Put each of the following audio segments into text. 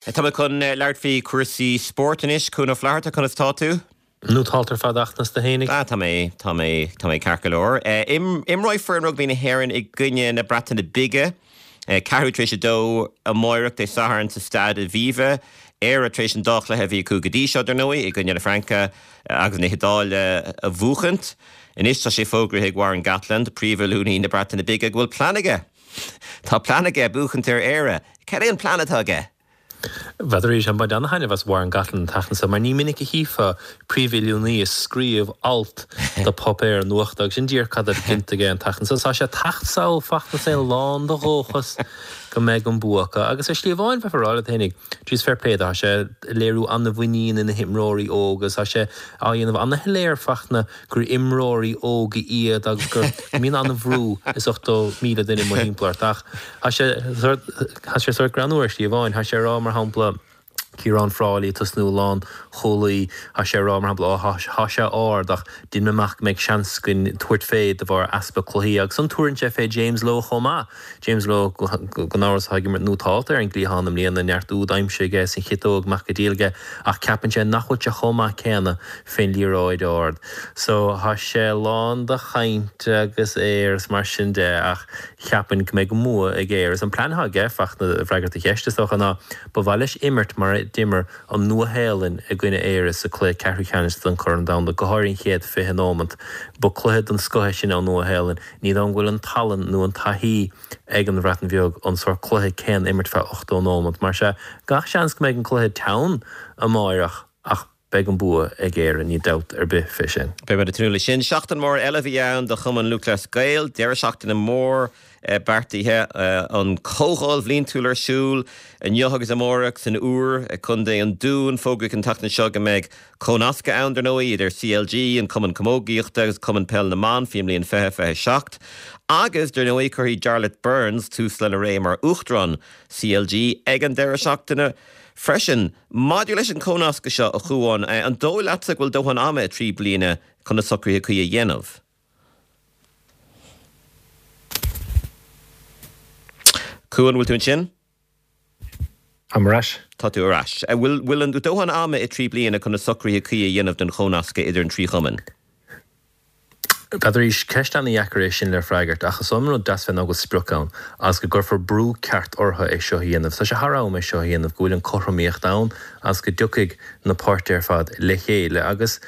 Tá muid chun labhairt faoi chúrsaí spóirt anois. Cuan Ó Flatharta, conas tá tú? Nótálta ar fad ach conas tá tú fhéinig. Ah, tá mé, tá mé, tá mé ceart go leor. Imreoidh foireann rugbaí na hÉireann i gcoinne na Breataine Bige, ceathrú tar éis a dó amáireach, Dé Sathairn, sa Staid Aviva. Éire tar éis an dá chluiche a bhí acu go dtí seo, dar ndóigh, i gcoinne na Fraince agus na hIodáile a bhuachaint. Anois tá sé fógraithe ag Warren Gatland, príomhoiliúnaí na Breataine Bige, go bhfuil plean aige. Tá plean aige buachaint ar Éire. Cad é an plean atá aige? N'fheadar arís, ag baint ana-thaitneamh as Warren Gatland an tseachtain seo, mar ní minic a chífeá príomhoiliúnaí ag scríobh alt do pháipéar nuachta agus sin díreach cad atá déanta aige an tseachtain seo. Tá sé ag teacht sall Fachtna is é lán de dhóchas go mbeidh an bua acu. Agus ar shlí amháin, bheifeá ag rá leat fhéinig, jeez fair play dó, tá sé ag léiriú ana-mhuinín ina himreoirí óga agus tá sé á dhéanamh ana-shoiléir Fachtna gur imreoirí óga iad agus go mbíonn an-bhrú is 80,000 duine amuigh thimpeall ort. Ach tá sé sórt, tá sé sórt greannmhar ar shlí amháin. Tá sé ag rá, mar shampla, Ciarán Frawley ag tosnú lánchúlaí, tá sé ag rá, mar shampla, ó tá sé ard ach dhein mé amach go mbeidh seans againn tabhairt fé de bharr easpa cluichí. Agus ansan tabharann sé fé James Lowe chomh maith. James Lowe, gan amhras, atá ag imirt nótálta ar an gcliathán i mbliana, neart úd aimsithe aige is an chiotóg amach go diail aige, ach ceapann sé nach bhfuil sé chomh maith céanna fén liathróid ard. So, tá sé lán de chaint agus aoir is mar sin de, ach cheapfainn go mbeidh an bua ag Éire. Is an plean atá aige, Fachtna, i bhfreagairt do cheist, is dócha, ná ba mhaith leis imirt mar a d'imir an Nua-Shéalainn i gcoinne Éire sa cluiche ceathrú ceannais don Chorn Domhanda, go háirithe an chéad 20 nóimeant. Ba cluiche den scoth é sin ón Nua-Shéalainn. Ní dóigh liom go bhfuil an tallann nó an taithí ag an Bhreatain Bheag an sórt cluiche céanna a imirt feadh 80 nóimeant. Mar sea, gach seans go mbeidh an cluiche teann amáireach ach beidh an bua ag Éire, níl dabht ar bith fé sin. Beidh muid ag tnúth leis sin. Seachtain mhór eile a bhí ann do Chumann Lúthchleas Gael. Deireadh seachtaine mór beartaithe. An Chomhdháil Bhliantúil ar siúl inniu agus amárach san Iúr i gContae an Dúin. Fógraíodh an tseachtain seo go mbeidh Comhnascadh ann, dar ndóigh, idir CLG, an Cumann Camógaíochta agus Cumann Peil na mBan faoin mbliain 2027. Agus, dar ndóigh, cuirfidh Jarlath Burns tús lena ré mar Uachtarán CLG ag an deireadh seachtaine freisin. Maidir leis an chomhnascadh seo, a Chuáin, an dóigh leatsa go bhfuil dóthain ama i dtrí bliana chun na socruithe cuí a dhéanamh? Cuan, bhfuil tú ansin? Táim ar ais. Tá tú ar ais. An bhfuil, bhfuil an dóthain ama i dtrí bliana chun na socruithe cuí a dhéanamh don chomhnascadh idir an trí chumann? N'fheadar arís, ceist ana-dheacair é sin le freagairt, ach is dóigh liom an rud deas fé ná go bhfuil sprioc ann, agus go gcuirfear brú ceart orthu é seo a dhéanamh. Tá sé thar am é seo a dhéanamh, go bhfuil an cothromaíocht ann agus go dtiocfaidh na páirtithe ar fad le chéile. Agus,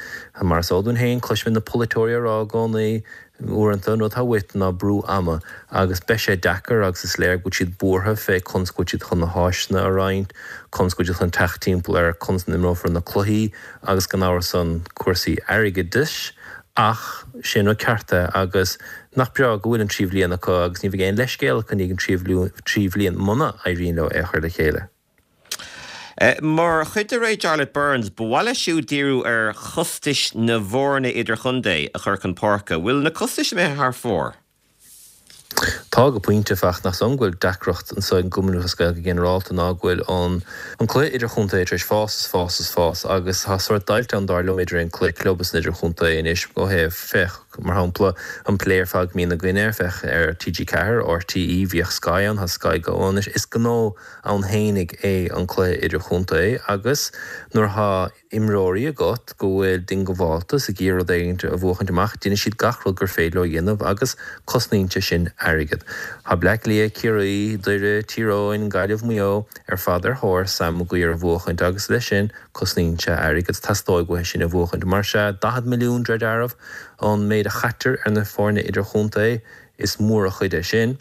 mar is eol dúinn féin, cloisimid na polaiteoirí á rá i gcónaí, Uaireanta, an rud atá uait ná brú ama, agus beidh sé deacair agus is léir go bhfuil siad buartha fé conas go bhfuil siad chun na háiseanna a roinnt, conas go bhfuil siad chun teacht timpeall ar conas a n-imreofar na cluichí agus gan amhras ann cúrsaí airgeadais ach sé an rud ceart é agus nach breá go bhfuil an trí bhliain acu agus ní bheidh aon leithscéal acu i ndiaidh an trí bhliain muna éiríonn leo é a chur le chéile. Mar chuid de ré Jarlath Burns, ba mhaith leis siúd díriú ar chostais na bhfoirne idirchontae a chur chun páirce. Bhfuil na costais imithe thar fóir? Tá, go pointe, Fachtna, ach is dóigh liom go bhfuil deacracht anseo ag an gCumann Lúthchleas Gael go ginearálta ná go bhfuil an an cluiche idirchontae tar éis fás is fás is fás agus tá sórt deighilt ann dar liom idir an cluiche club is an idirchontae anois ó thaobh, féach, mar shampla, an plé ar fad go mbíonn againn air, féach ar TG4, RTÉ, bhíodh Sky ann, tá Sky Go ann anois. Is gnó ann fhéinig é an cluiche idirchontae agus nuair atá imreoirí agat go bhfuil diongbháilte is ag iarraidh rud éigin a bhuachaint amach, déanfaidh siad gach rud gur féidir leo a dhéanamh agus cosnaíonn sé sin airgead. Tá Bleá Cliath, Ciarraí, Doire, Tír Eoghain, Gaillimh, Maigh Eo ar fad ar thóir Sam Maguire a bhuachaint agus leis sin cosnaíonn sé airgead. Teastóidh uathu sin a bhuachaint. Mar sea, 40 milliún de réir dealraimh an méid a chaitear ar na foirne idirchontae, is mór an chuid é sin.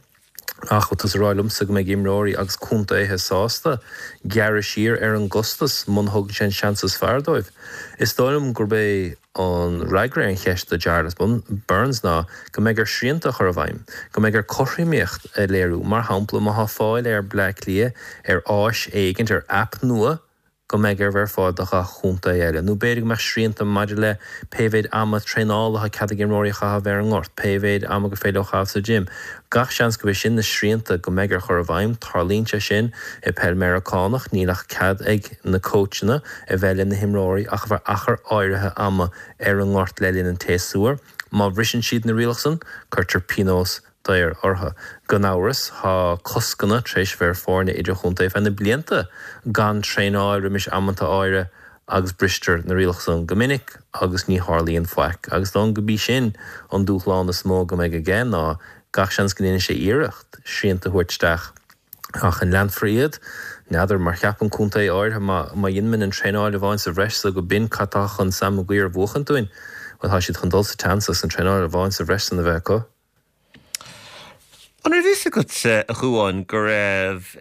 Ach bhfuil tusa ag rá liomsa go mbeidh imreoirí agus contaetha sásta gearradh siar ar an gcostas muna thugann sé an seans is fearr dóibh? Is dóigh liom gurb é an fhreagra ar an cheist do Jarlath Burns ná go mbeidh air srianta a chur i bhfeidhm, go mbeidh air cothromaíocht a léiriú. Mar shampla, má tá fáil ar Bleá Cliath ar áis éigint, ar aip nua, go mbeidh air bheith ar fáil do ghach chontae eile, nó b'fhéidir go mbeadh srianta maidir le pé mhéid ama traenála atá cead ag imreoirí a chaitheamh ar an ngort, pé mhéid ama gur féidir leo a chaitheamh sa gym. Gach seans gurb é sin na srianta go mbeidh air chur i bhfeidhm. Tarlaíonn sé sin i peil Meiriceánach, níl ach cead ag na cóitseanna a bheith le na himreoirí ach ar feadh achar áirithe ama ar an ngort le linn an tséasúir. Má bhriseann siad na rialacha san, cuirtear pionós. daor orthu. Gan amhras, tá coscanna tar éis bheith ar foirne idirchontae feadh na blianta gan traenáil roimis amanta áirithe agus bristear na rialacha san go minic agus ní tharlaíonn faic. Agus dóigh liom go b'í sin an dúshlán is mó go mbeidh aige ná gach seans go ndéanfaidh sé iarracht srianta a thabhairt isteach ach an leanfar iad? N'fheadar, mar cheapann contae áirithe má má dheinimid an traenáil amháin sa bhreis so go b'in cad tá chun Sam Maguire a bhuachaint dúinn. Bhuel tá siad chun dul sa tseans as an traenáil amháin sa bhreis san a bheith acu. An raibh fhios agat, a Chuáin, go raibh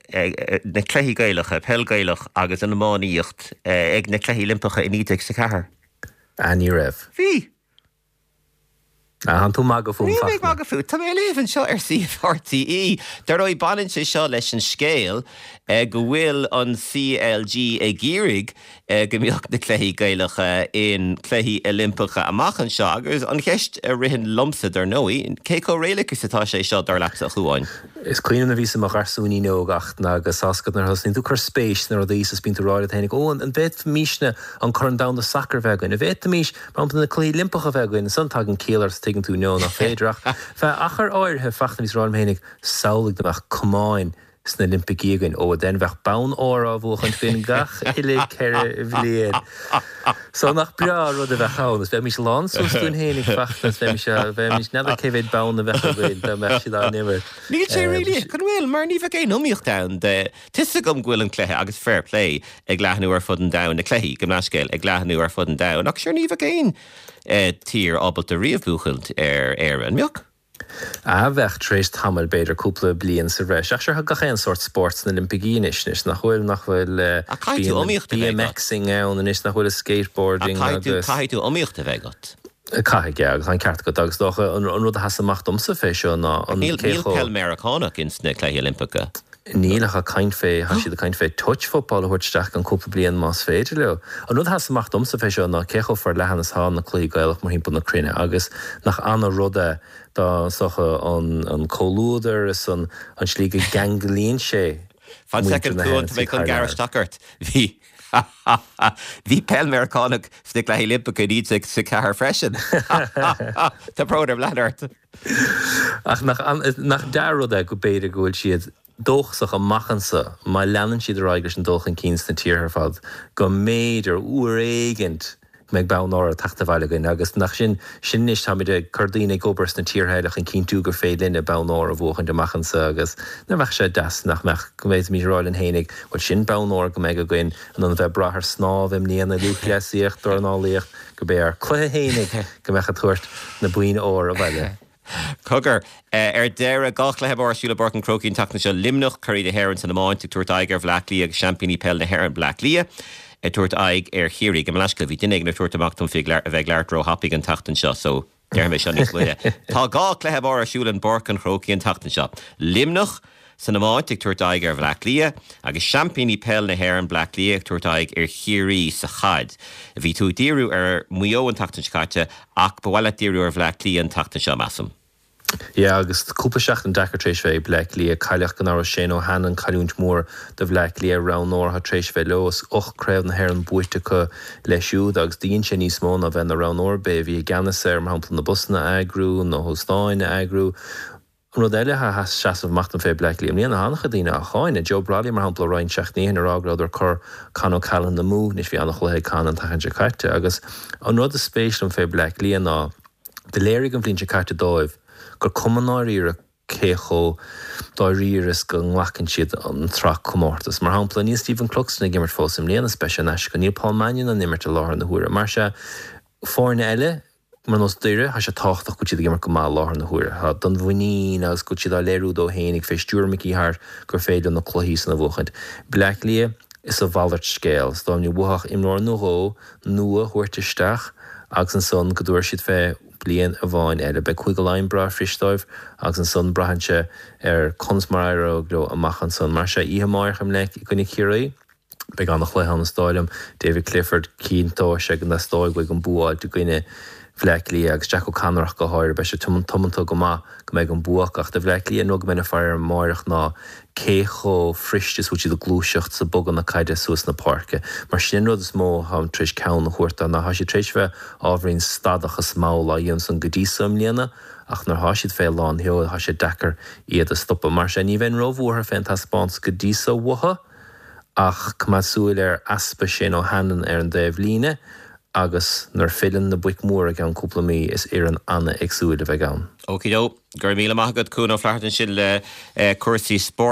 na cluichí Gaelacha, peil Gaelach agus an iománaíocht, ag na Cluichí Oilimpeacha i 1904? Ah, ní raibh. Bhí. Ah, tánn tú ag magadh fúm, Níl mé ag magadh fút. Tá mé ag léamh anseo ar suíomh RTÉ. Dar ndóigh, baineann sé seo leis an scéal go bhfuil an CLG ag iarraidh go mbeadh na cluichí Gaelacha in Cluichí Oilimpeacha amach anseo agus an cheist a ritheann liomsa, dar ndóigh, cé chomh réalaíoch is atá sé seo, dar leatsa, a Chuáin? Is cuimhin liom nuair a bhíos i mo gharsúinín óg ach agus tá's agat nuair a thosnaíonn tú ag cur spéis sna rudaí is bíonn tú ag rá leat féinig, ó, an bhféadfaimisne an Corn Domhanda Sacair a bheith againn? An bhféadfaimis, mar shampla, na Cluichí Oilimpeacha a bheith againn? Ansan tagann ciall ort is tuigeann tú, no, nach féidir ach feadh achar áirithe, Fachtna, bhíos ag rá liom féinig, samhlaigh dá mbeadh camáin sna Oilimpicí againn. Ó, then bheadh bonn óir á bhuachaint againn gach uile 4 bhliain. So nach breá an rud a bheadh ann. Is bheimis lán suas dúinn fhéinig Fachtna is bheimis, bheimis, n'fheadar cé mhéad bonn a bheadh againn dá mbeadh siad á n-imirt. Níl sé réalaíoch, an bhfuil? Mar ní bheadh aon iomaíocht ann de, tá 'fhios agam go bhfuil an cluiche, agus fair play, ag leathnú ar fud an domhain, na cluichí, gabh mo leithscéal, ag leathnú ar fud an domhain, ach sure ní bheadh aon tír ábalta riamh buachaint ar Éire, an mbeadh? A bheadh, tar éis tamaill, b'fhéidir, cúpla bliain sa bhreis. Ach sure, tá gach aon sórt spóirt sna Oilimpicí anois, anois, nach bhfuil, nach bhfuil, Ach caithfidh tú bíonn iomaíocht a bheith agat. BMXing ann anois, nach bhfuil, is skateboarding Ach caithfidh tú, agus. caithfidh tú iomaíocht a bheith agat. Caithfidh, yeah, agus tá an ceart agat. Agus is dócha, an rud a sheas amach domsa fé seo ná an Níl, cé níl chomh. peil Meiriceánach ins na Cluichí Oilimpeacha. Níl ach ag caint fé, tá siad ag caint fé touch football a thabhairt isteach i gceann cúpla bliain más féidir leo. An rud a sheas amach domsa fé seo ná cé chomh forleathan is atá na cluichí Gaelach mórthimpeall na cruinne agus nach ana rud é dá is dócha an an comhluadar is an an slí go gceanglaíonn sé Fan muintir soicind na Cuan, hÉireann tá mé is chun thar gearradh lear. isteach ort. Bhí Bhí peil Meiriceánach sna Cluichí Oilimpeacha i 1904 freisin. Tá brón orm leanúint ort. Ach nach, nach dea-rud é go b'fhéidir go bhfuil siad dóchasach amach anso, má leanann siad ar aghaidh leis an dul chun cinn sna tíortha ar fad, go mb'fhéidir, uair éigint, go mbeidh bonn óir ag teacht abhaile againn. Agus nach sin, sin anois, táimid ag cur daoine ag obair sna tíortha eile chun cinntiú gur féidir linne bonn óir a bhuachaint amach anso agus nach mbeadh sé deas nach mbeadh, go bhféadfaimis a rá linn fhéinig, bhuel sin bonn óir go mbeidh againn in ann a bheith ag brath ar snámh i mbliana, lúthchleasaíocht, dornálaíocht, gurb é ár cluiche fhéinig go mbeadh ag tabhairt na boinn óir abhaile. Cogar, ar deireadh, 2 chluiche mór ar siúl i bPáirc an Chrócaigh an tseachtain seo, Luimneach, curaidh na hÉireann san iomáint, ag tabhairt aghaidh ar Bhleá Cliath agus seaimpíní peile na hÉireann, Bleá Cliath, ag tabhairt aghaidh ar Chiarraí. Gabh mo leithscéal, bhí duine éigin ag tabhairt amach dom faoi a bheith ag labhairt róthapaidh an tseachtain seo so déarfaidh mé seo níos moille. Tá 2 chluiche mór ar siúl in bPáirc an Chrócaigh an tseachtain seo, Luimneach, san iomáint ag tabhairt aghaidh ar Bhleá Cliath agus seaimpíní peile na hÉireann, Bleá Cliath ag tabhairt aghaidh ar Chiarraí sa chaid. Bhí tú ag díriú ar Mhaigh Eo an tseachtain seo caite ach ba mhaith leat díriú ar Bhleá Cliath an tseachtain seo, measaim. Yeah, agus cúpla seachtain deacair tar éis bheith ag Bleá Cliath. Cailleadh gan amhras Shane O'Hanlon, cailliúint mhór do Bhleá Cliath, roghnóir atá tar éis bheith leo. Is 8 craobh na hÉireann buaite acu leis siúd agus do dhein sé níos mó ná bheith ina roghnóir. B'é a bhí i gceannas ar, mar shampla, na busanna a eagrú, na hóstáin a eagrú. An rud eile atá ag seasamh amach dom fé Bleá Cliath i mbliana, tá an-chuid daoine á cháineadh. Joe Brolly, mar shampla, roinnt seachtainí ó shin ag rá go rabhadar ag cur Con O'Callaghan amú. Anois bhí an-chluiche ag Con an tseachtain seo caite agus an rud is spéis liom fé Bleá Cliath ná do léirigh an bhliain seo caite dóibh gur cuma ndáiríre cé chomh dáiríre is go nglacann siad an tsraith comórtas. Mar shampla, níl Stephen Cluxton ag imirt fós i mbliana is beidh sé in aisce. Níl Paul Mannion in imirt i láthair na huaire. Mar sea, foirne eile, Mar nós Doire, tá sé tábhachtach go bhfuil siad ag imirt go maith i láthair na huaire. Tá don mhuinín agus go bhfuil siad á léiriú dóibh fhéinig fé stiúir Mickey Harte gur féidir leo na cluichí san a bhuachaint. Bleá Cliath, is a mhalairt scéal. Is dóigh liom ní uathu ach imreoir nó dhó nua a thabhairt isteach agus ansan go dtabharfaidh siad fé bliain amháin eile. Beidh Cúige Laighean breá fuirist dóibh agus ansan braitheann sé ar conas mar a éireoidh leo amach ansan. Mar sea, oíche amáireach i mBleic i gcoinne Chiarraí. Beidh an-chluiche ann is dóigh liom. David Clifford, cinnteoidh sé go dteastóidh uaidh an bua a fháilt i gcoinne. Bhleá Cliath agus Jack O'Connor ach go háirithe. Beidh sé tiomanta go maith go mbeidh an bua acu ach do Bhleá Cliath an rud go mbeinn ag faire air amáireach ná cé chomh fuirist is bhfuil siad ag gluaiseacht is ag bogadh na caide suas na páirce. Mar sin an rud is mó atáim tar éis ceann a thabhairt dó ná tá siad tar éis bheith ábhairín stadach is mall á dhéanamh san go dtí so i mbliana ach nuair atá siad fé lán sheoil tá sé deacair iad a stopadh. Mar sin ní bheinn róbhuartha fén taispeántas go dtí so uathu ach coimeád súil ar easpa Shane O'Hanlon ar an dtaobh líne agus nuair filleann na boic mhóra i gceann cúpla mí is fhoireann an-éagsúil a bheidh ann. Okey-do. Go raibh míle maith agat Cuan Ó Flatharta ansin le cúrsaí spóirt.